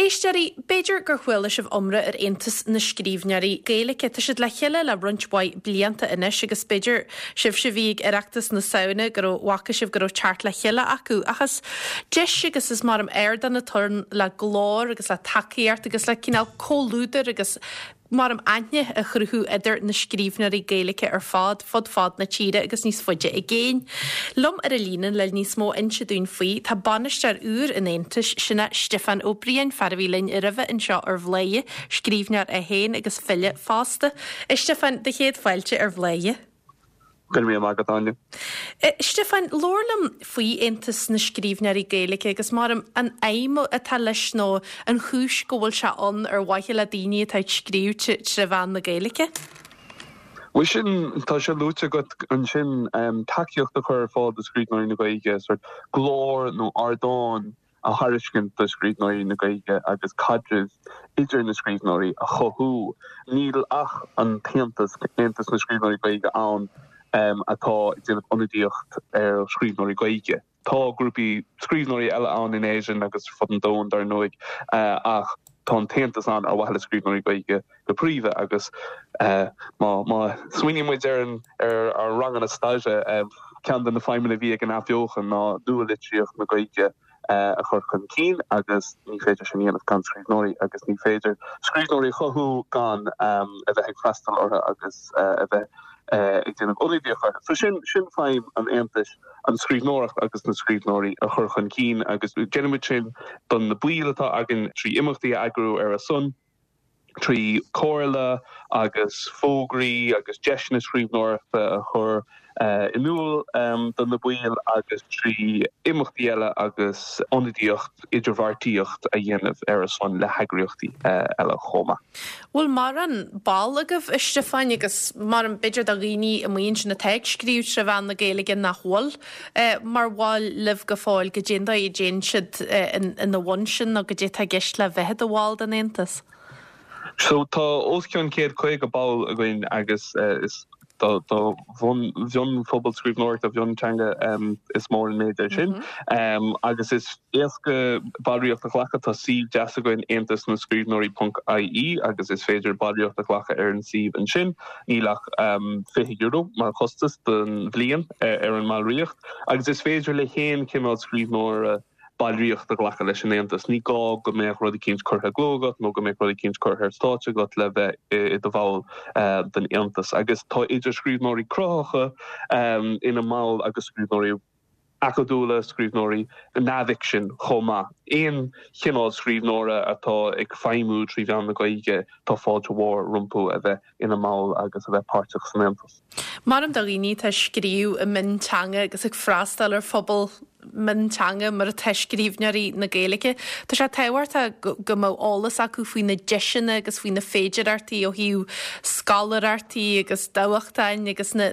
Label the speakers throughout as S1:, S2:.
S1: Éisteoirí, b'fhéidir gur chuala sibh iomrá ar Aontas na Scríbhneoirí Gaeilge. Tá siad le chéile le roinnt mhaith blianta anois agus b'fhéidir, sibhse a bhí ag Oireachtas na Samhna, go raibh, bhfaca sibh go raibh teacht le chéile acu. Ach is deis agus is mar ardán atá ann le glór agus le tacaíocht agus le cineál comhluadar agus mar aithne a chruthú idir na scríbhneoirí Gaeilge ar fad, fud fad na tíre agus níos faide i gcéin. Liom ar an líne le níos mó a inse dúinn faoi, tá bainisteoir úr an Aontais, sin é Stiofán Ó Briain, fear a bhí linn roimhe anseo ar Bhladhaire, scríbhneoir é féin agus file fosta. A Stiofáin, do chéad fáilte ar Bhladhaire.
S2: Go raibh míle maith agat, Áine.
S1: A Stiofáin, labhair liom faoi Aontas na Scríbhneoirí Gaeilge agus mar an aidhm atá leis nó an chúis go bhfuil sé ann ar mhaithe le daoine atá ag scríobh tré mheán na Gaeilge.
S2: Bhuel sin, tá sé luaite agat ansin, tacaíocht a chur ar fáil do scríbhneoirí na Gaeilge, sórt glór nó ardán a thairiscint do scríbhneoirí na Gaeilge agus caidreamh idir na scríbhneoirí a chothú. Níl ach an tAontas, Aontas na Scríbhneoirí Gaeilge, ann atá ag déanamh ionadaíocht ar scríbhneoirí Gaeilge. Tá grúpaí scríbhneoirí eile ann in Éirinn agus ar fud an domhain, dar ndóigh, ach tá an tAontas ann ar mhaithe le scríbhneoirí Gaeilge go príomha agus má smaoiníonn muid ar ar ár ranganna staire, ceann de na feidhmeanna a bhí ag an Athbheochan ná nua-litríocht na Gaeilge a chur chun cinn agus ní féidir sin a dhéanamh gan scríbhneoirí agus ní féidir scríbhneoirí a chothú gan a bheith ag freastal orthu agus a bheith ag déanamh ionadaíocht orthu. So sin sin feidhm an Aontais, an scríbhneoireacht agus na scríbhneoirí a chur chun cinn agus déanaimid sin do na baill atá againn trí imeachtaí a eagrú ar a son. trí chomhairle agus fógraí agus deiseanna scríbhneoireachta a chur in iúl do na baill agus trí imeachtaí eile agus ionadaíocht, idirbheartaíocht a dhéanamh ar a son le heagraíochtaí eile chomh maith.
S1: Bhfuil mórán ball agaibh, a Stiofáin, agus mar b'fhéidir do dhaoine amuigh ansin atá ag scríobh tré mheán na Gaeilge nach bhfuil mar bhaill libh go fóill, goidé an dóigh a dtéann siad ina bhun sin nó goidé atá i gceist le bheith i do bhall den Aontas?
S2: So tá os cionn 150 ball againn agus is do mhionphobal scríbhneoireachta mhionteanga is mór an méid é sin. Agus is éasca ballraíocht a ghlacadh, tá suíomh deas againn aontas na scríbhneoirí ponc ie agus is féidir ballraíocht a ghlacadh ar an suíomh ansin. Níl ach €20 mar chostas don bhliain ar an mballraíocht agus is féidir le haon chineál scríbhneora ballraíocht a ghlacadh leis an Aontas. Ní gá go mbeadh rud eicínt curtha i gcló agat nó go mbeadh rud eicínt curtha ar stáitse agat le bheith i do bhall den Aontas. Agus tá idir scríbhneoirí cruthaitheacha ina mball agus scríbhneoirí acadúla, scríbhneoirí neamhfhicsin chomh maith. Aon chineál scríbhneora atá ag feidhmiú trí mheán na Gaeilge, tá fáilte mhór rompu a bheith ina mball agus a bheith páirteach san Aontas.
S1: Maram do dhaoine atá ag scríobh i mionteanga agus ag freastal ar phobal mionteanga mar atá scríbhneoirí na Gaeilge, tá sé tábhachtach go mbeadh eolas acu faoi na deiseanna agus faoi na féidearthachtaí ó thaobh scoláireachtaí agus dámhachtain agus na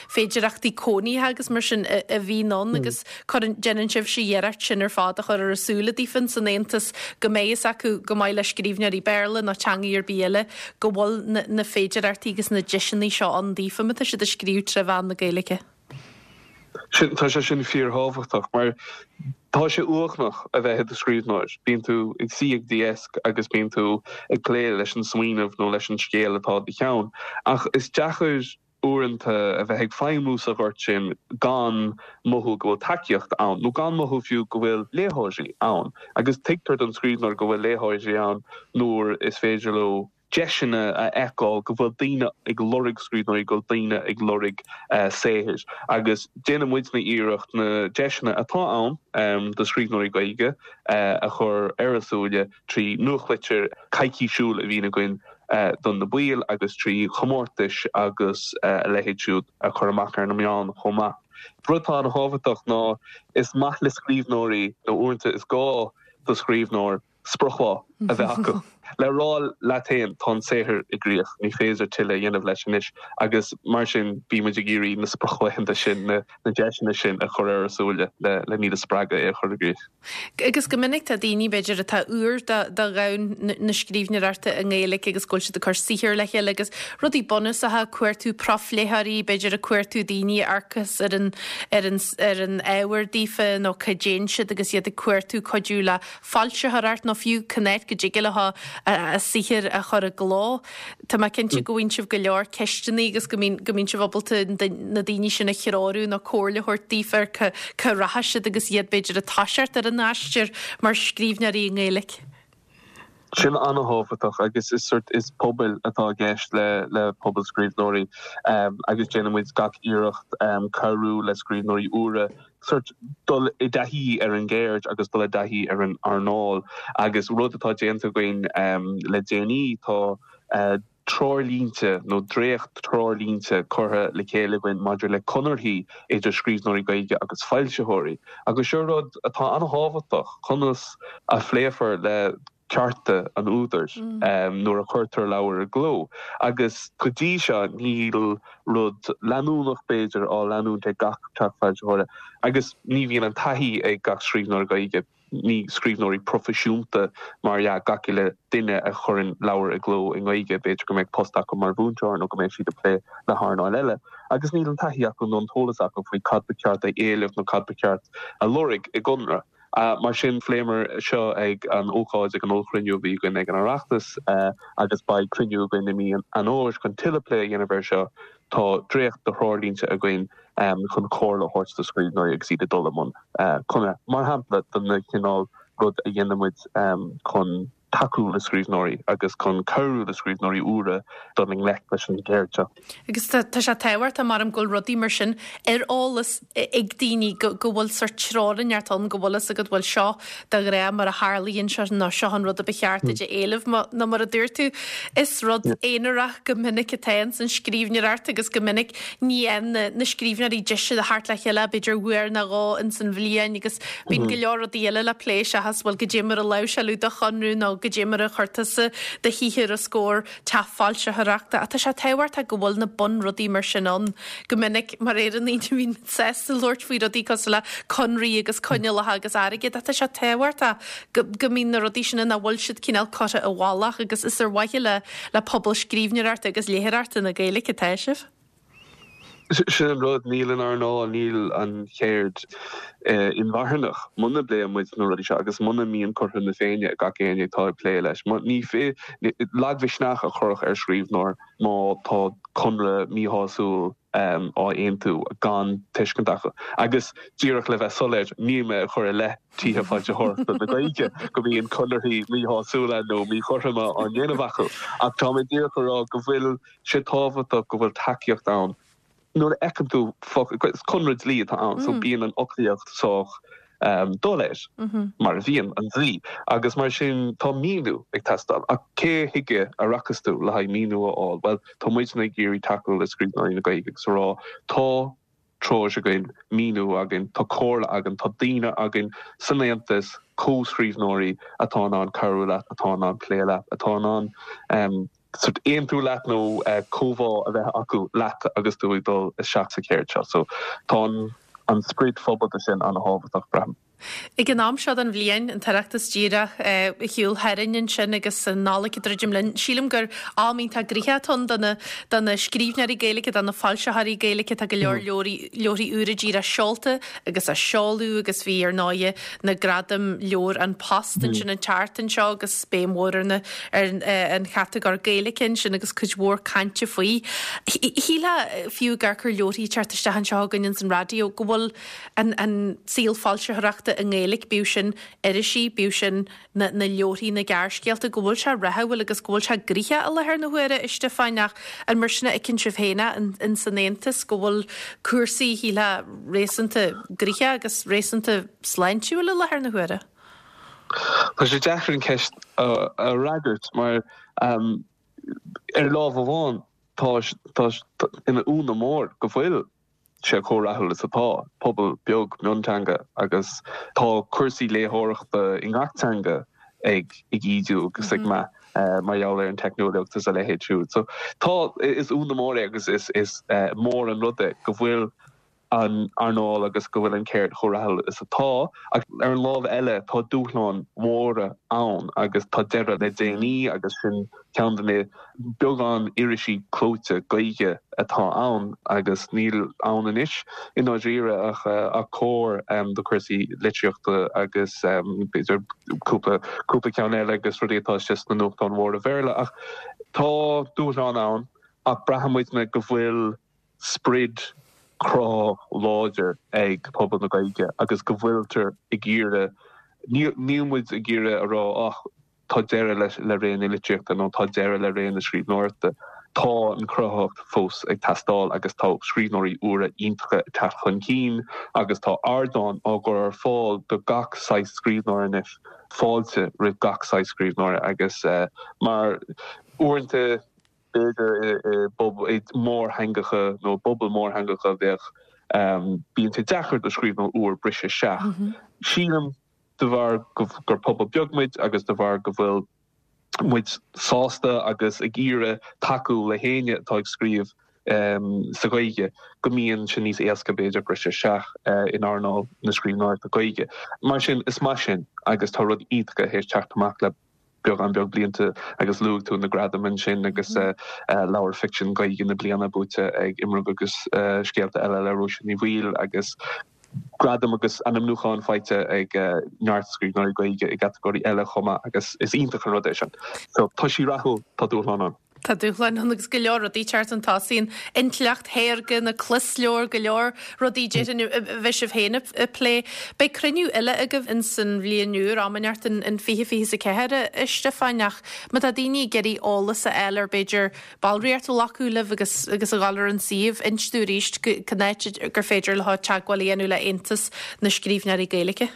S1: féidearthachtaí cónaithe agus mar sin a bhíonn ann agus cuireann, déanann sibhse iarracht sin ar fad a chur ar a súile daofa san Aontas go mbeidh fhios acu chomh maith le scríbhneoirí Béarla nó teangaí ar bith eile go bhfuil na féidearthachtaí agus na deiseanna seo ann daofa má tá siad ag scríobh tré mheán na Gaeilge.
S2: Sin, tá sé sin fíorthábhachtach mar tá sé uaigneach a bheith i do scríbhneoir. Bíonn tú ag suí ag do dheasc agus bíonn tú ag plé leis an smaoineamh nó leis an scéal atá i do cheann. Ach is deacair uaireanta a bheith ag feidhmiú sa ghort sin gan mothú go bhfuil tacaíocht ann, nó gan mothú fiú go bhfuil léitheoirí ann. Agus tuigtear don scríbhneoir go bhfuil léitheoirí ann nuair is féidir leo deiseanna a fheiceáil, go bhfuil daoine ag lorg scríbhneoirí, go bhfuil daoine ag lorg saothair. Agus déanann muidne iarracht na deiseanna atá ann do scríbhneoirí Gaeilge a chur ar a súile trí nuachtlitir coicísiúil a bhíonn againn do na baill agus trí chomórtais agus a leithéid siúd a chur amach ar na meáin chomh maith. Rud atá an-thábhachtach ná is maith le scríbhneoirí, nó uaireanta is gá do scríbhneoir, sprioclá a bheith acu le rá leat féin tá an saothar i gcrích, ní féidir tuilleadh a dhéanamh leis anois agus mar sin bímid ag iarraidh na sprioclaethanta sin, na deiseanna sin a chur ar a súile le iad a spreagadh é a chur i gcrích.
S1: Agus go minic tá daoine, b'fhéidir, atá úr do dhomhan na scríbhneoireachta i nGaeilge agus go bhfuil siad ag cur saothair le chéile agus rudaí bunúsacha, cuartú profléitheoirí, b'fhéidir ag cuartú daoine a amharcas ar an, ar an, ar an ábhar daofa nó cá dtéann siad agus iad ag cuartú cuidiú le foilsitheoireacht nó. fiú cén áit go dtig leo a saothar a chur i gcló. Tá mé cinnte go bhfaigheann sibh go leor ceisteanna agus go mbíonn go mbíonn sibh ábalta na daoine sin a threorú nó comhairle a thabhairt daofa ar cá cá rachaidh siad agus iad b'fhéidir ag toiseacht ar an aistear mar scríbhneoirí i nGaeilge.
S2: Sin an-thábhachtach agus is sort is pobail atá i gceist le le pobal scríbhneoirí agus déanann muid gach iarracht cabhrú le scríbhneoirí úra sort dul i dtaithí ar an gceird agus dul i dtaithí ar an earnáil agus rud atá déanta againn le déanaí tá treoirlínte nó dréacht-treoirlínte curtha le chéile againn maidir le conarthaí idir scríbhneoirí Gaeilge agus foilsitheoirí agus seo rud atá an-thábhachtach, conas a phléifear le cearta an údair nuair a chuirtear leabhar i gcló agus go dtí seo níl rud leanúnach b'fhéidir á leanúint ag gach teach foilsitheora agus ní bhíonn an taithí ag gach scríbhneoir Gaeilge, ní scríbhneoirí proifisiúnta mar dhea gach uile duine a chuireann leabhar i gcló i nGaeilge, b'fhéidir go mbeadh post acu mar mhúinteoir nó go mbeadh siad ag plé le hearnáil eile agus níl an taithí acu nó an t-eolas acu faoi cad ba cheart a éileamh nó cad ba cheart a lorg i gconradh. Mar sin, phléamar seo ag an ócáid, ag an ollchruinniú a bhí againn ag an Oireachtas agus beidh cruinniú againn i mí an Fhómhair chun tuilleadh plé a dhéanamh air seo. Tá dréacht de threoirlínte againn chun comhairle a thabhairt do scríbhneoirí agus iad ag dul i mbun conradh, mar shampla, den chineál rud a dhéanann muid chun. tacú le scríbhneoirí agus chun cabhrú le scríbhneoirí úra dul i ngleic leis an gceird seo.
S1: Agus tá sé tábhachtach, maram, go bhfuil rudaí mar sin ar eolas ag daoine, go bhfuil sórt treoir inteacht ann, go bhfuil fhios agat, bhuel seo de ghnáth mar a tharlaíonn seo nó seo an rud a ba cheart duit a éileamh. Nó mar a dúirt tú, is rud aonarach go minic atá ins an scríbhneoireacht agus go minic ní fhaigheann na scríbhneoirí deis a theacht le chéile b'fhéidir uair nó dhó ins an bhliain agus Bíonn go leor rudaí eile le plé seachas, bhuel, goidé mar a láimhseáladh do chonradh nó goidé mar a chuir tusa do shaothar os comhair teach foilsitheoireachta. Ach tá sé tábhachtach go bhfuil na bunrudaí mar sin ann. Go minic, mar Éireannaigh, ní bhíonn muid sásta labhairt faoi rudaí cosúil le conraí agus coinníollacha agus airgead ach tá sé tábhachtach go go mbíonn na rudaí sin ann, nach bhfuil siad cineál curtha i bhfolach agus is ar mhaithe le le pobal scríbhneoireachta agus léitheoireachta na Gaeilge atá sibh.
S2: Sin an rud, níl an earnáil, níl an cheird inmharthanach muna bpléann muid na rudaí seo agus muna mbíonn cothrom na Féinne ag gach éinne atá ag plé leis. Ní lagmhisneach a chuirfeadh ar scríbhneoir má tá conradh míshásúil á aontú gan tuiscint acu. Agus díreach le bheith soiléir, níl mé ag cur i leith tithe foilsitheoireachta na Gaeilge go mbíonn conarthaí míshásúla nó míchothroma á ndéanamh acu ach tá mé díreach ag rá go bhfuil sé tábhachtach go bhfuil tacaíocht ann nuair a fheiceann tú is conradh dlí atá ann so bíonn an fhoclaíocht sách doiléir mar a bhíonn an dlí agus mar sin tá míniú ag teastáil ach cé chuige a rachas tú le haghaidh míniú a fháil? Bhuel tá muidne ag iarraidh tacú le scríbhneoirí na Gaeilge agus a rá tá treoir againn, míniú againn, tá comhairle againn, tá daoine againn san Aontas, comhscríbhneoirí atá in ann cabhrú leat, atá in ann plé leat, atá in ann sort aontú leat nó comhbhá a bheith acu leat agus tú ag dul isteach sa cheird seo. So tá an sprid phobalta sin an-thábhachtach, braithim.
S1: Ag an am seo den bhliain, an tOireachtas díreach ar shiúl tharainn ansin agus an Nollaig ag druidim linn, sílim gur am iontach gnoitheach atá ann do na do na scríbhneoirí Gaeilge, do na foilsitheoirí Gaeilge. Tá go leor leabharthaí leabharthaí úra díreach seolta agus á seoladh agus bhí ar ndóighe na Gradaim Leabhar An Post ansin an tseachtain seo agus béim mhór ar na ar an chatagóir Gaeilge ansin agus cuid mhór cainte faoi. Shílfeá fiú ag amharc ar leabharthaí ag teacht isteach anseo againn ins an raidió go bhfuil an an saol foilsitheoireachta i nGaeilge, bíodh sin irisí, bíodh sin na na leabharthaí, na gearrscéalta, go bhfuil sé rathúil agus go bhfuil sé gnoitheach i láthair na huaire, a Stiofáin, ach an mar sin a fheiceann sibh féin é in san Aontas, go bhfuil cúrsaí, shílfeá, réasúnta gnoitheach agus réasúnta sláintiúil i láthair na huaire?
S2: Tá sé deacair an cheist a fhreagairt mar ar lámh amháin tá tá ina ionadh mór go bhfuil sé chomh rathúil is atá, pobal beag mionteanga agus tá cúrsaí léitheoireachta i ngach teanga ag ídiú agus ag meath mar gheall ar an teicneolaíocht is a leithéid siúd. So tá, is ionadh mór é agus is mór an rud é go bhfuil. an earnáil agus go bhfuil an ceird chomh rathúil is atá. Ach ar an lámh eile tá dúshláin mhóra ann agus tá deireadh le déanaí agus sin ceann de na beagán irisí clóite Gaeilge atá ann agus níl ann anois i ndáiríre ach Comhar do chúrsaí litríochta agus b'fhéidir cúpla cúpla ceann eile agus rudaí atá istigh sna nuachtáin mhóra Bhéarla. Ach tá dúshláin ann ach braitheann muidne go bhfuil sprid cruthaitheach láidir ag pobal na Gaeilge agus go bhfuiltear ag iarraidh, níl muid ag iarraidh a rá ach tá deireadh le ré na litríochta nó tá deireadh le ré na scríbhneoireachta. Tá an chruthaitheacht fós ag teastáil agus tá scríbhneoirí úra iontacha ag teacht chun cinn agus tá ardáin á gcur ar fáil do gach saghas scríbhneoir anois, fáilte roimh gach saghas scríbhneoir agus mar uaireanta, B'fhéidir i mórtheangacha nó i bpobail mórtheangacha bheadh, bíonn sé deacair do scríbhneoir úr briseadh isteach. Sílim de bharr gur pobal beag muid agus de bharr go bhfuil muid sásta agus ag iarraidh tacú le héinne atá ag scríobh sa Ghaeilge go mbíonn sé níos éasca b'fhéidir briseadh isteach in earnáil na scríbhneoireachta Gaeilge. Mar sin is maith sin agus tá rudaí iontacha théis teacht amach le beagán beag blianta agus luaigh tú na gradaim ansin agus leabhar ficsin Gaeilge na bliana buaite ag Imram agus Scéalta Eile le Róise Ní Bhaoill agus gradaim agus ainmniúcháin faighte ag neart scríbhneoirí Gaeilge i gcatagóirí eile chomh maith agus is iontach an rud é sin. So tá sí rathúil, tá dúshlán ann.
S1: Tá dúshláin ann agus go leor rudaí ag teacht chun tosaigh, an intleacht shaorga, na closleabhair, go leor rudaí déarfainn a bheidh sibh féin ag plé. Beidh cruinniú eile agaibh ins an bhliain úr, am inteacht in 2024, a Stiofáin, ach má tá daoine ag iarraidh eolas a fháil ar b'fhéidir ballraíocht a ghlacadh libh agus agus a dhul ar an suíomh, inis dúinn arís cén áit gur féidir leo teagmháil a dhéanamh le Aontas na Scríbhneoirí Gaeilge.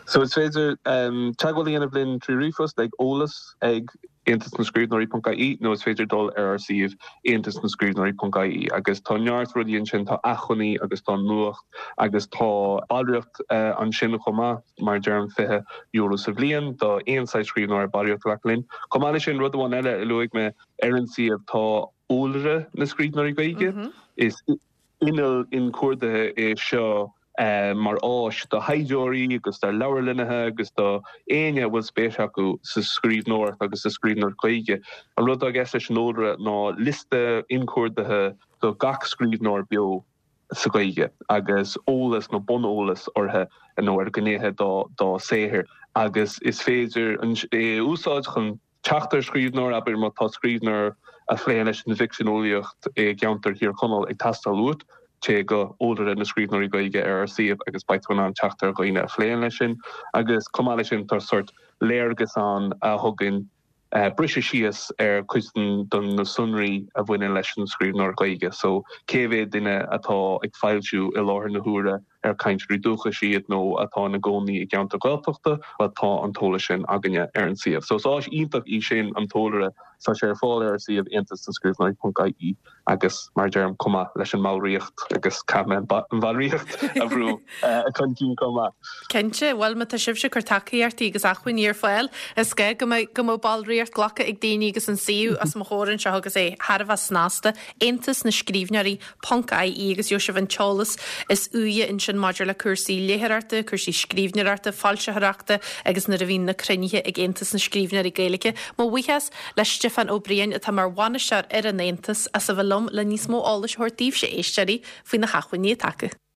S2: So is féidir teagmháil a dhéanamh linn trí ríomhphost ag eolas ag aontasnascríbhneoirí ponc ie nó is féidir dul ar ár suíomh aontasnascríbhneoirí ponc ie agus tá neart rudaí ansin, tá acmhainní agus tá nuacht agus tá ballraíocht ansin chomh maith, mar a deirim €20 sa bhliain do aon saghas scríbhneoir ballraíocht a ghlacadh linn. Chomh maith leis sin, rud amháin eile a luaigh mé ar an suíomh tá Eolaire na Scríbhneoirí Gaeilge. Is inneall inchuardaithe é seo mar áis do thaighdeoirí agus do leabharlannaithe agus do éinne a bhfuil spéis acu sa scríbhneoireacht agus sa scríbhneoireacht Ghaeilge. An rud atá i gceist leis an eolaire ná liosta inchuardaithe do gach scríbhneoir beo sa Ghaeilge agus eolas nó buneolas orthu nó ar ghnéithe dá saothar agus is féidir é a úsáid chun teacht ar scríbhneoir, abair má tá scríbhneoir a phléann leis an bhficsean eolaíocht i gceantar Thír Chonaill ag teastáil uait, téigh go Eolaire na Scríbhneoirí Gaeilge ar ár suíomh agus beidh tú in ann teacht ar dhaoine a phléann leis sin. Agus chomh maith leis sin tá sórt léargas ann a thugann briseadh síos ar chuid de na sonraí a bhaineann leis an scríbhneoir Gaeilge. So cé mhéad duine atá ag foilsiú i láthair na huaire ar cainteoirí dúchais iad nó atá ina gcónaí i gceantar Gaeltachta, bhuel tá an t-eolas sin againne ar an suíomh. So is áis iontach í sin, an t-eolaire. Tá sé ar fáil ar ár suíomh aontasnascríbhneoirí.ie agus mar a deirim, chomh maith leis an mballraíocht agus caithfidh mé an bhallraíocht a bhrú chun cinn chomh maith.
S1: Cinnte, bhuel má tá sibhse ag cur tacaíochtaí agus acmhainní ar fáil, is gá go mbeadh go mbeadh ballraíocht glactha ag daoine agus an suíomh os mo chomhair anseo agus é thar a bheith snasta, Aontas na Scríbhneoirí ponc ie agus gheobhaidh sibh an t-eolas is úire ansin maidir le cúrsaí léitheoireachta, cúrsaí scríbhneoireachta, foilsitheoireachta agus nuair a bhíonn na cruinnithe ag Aontas na Scríbhneoirí Gaeilge. Mo bhuíochas le Stiofán Ó Briain atá mar bhainisteoir ar an Aontas as a bheith liom le níos mó eolais a thabhairt daoibhse, a éisteoirí, faoi na hacmhainní atá acu.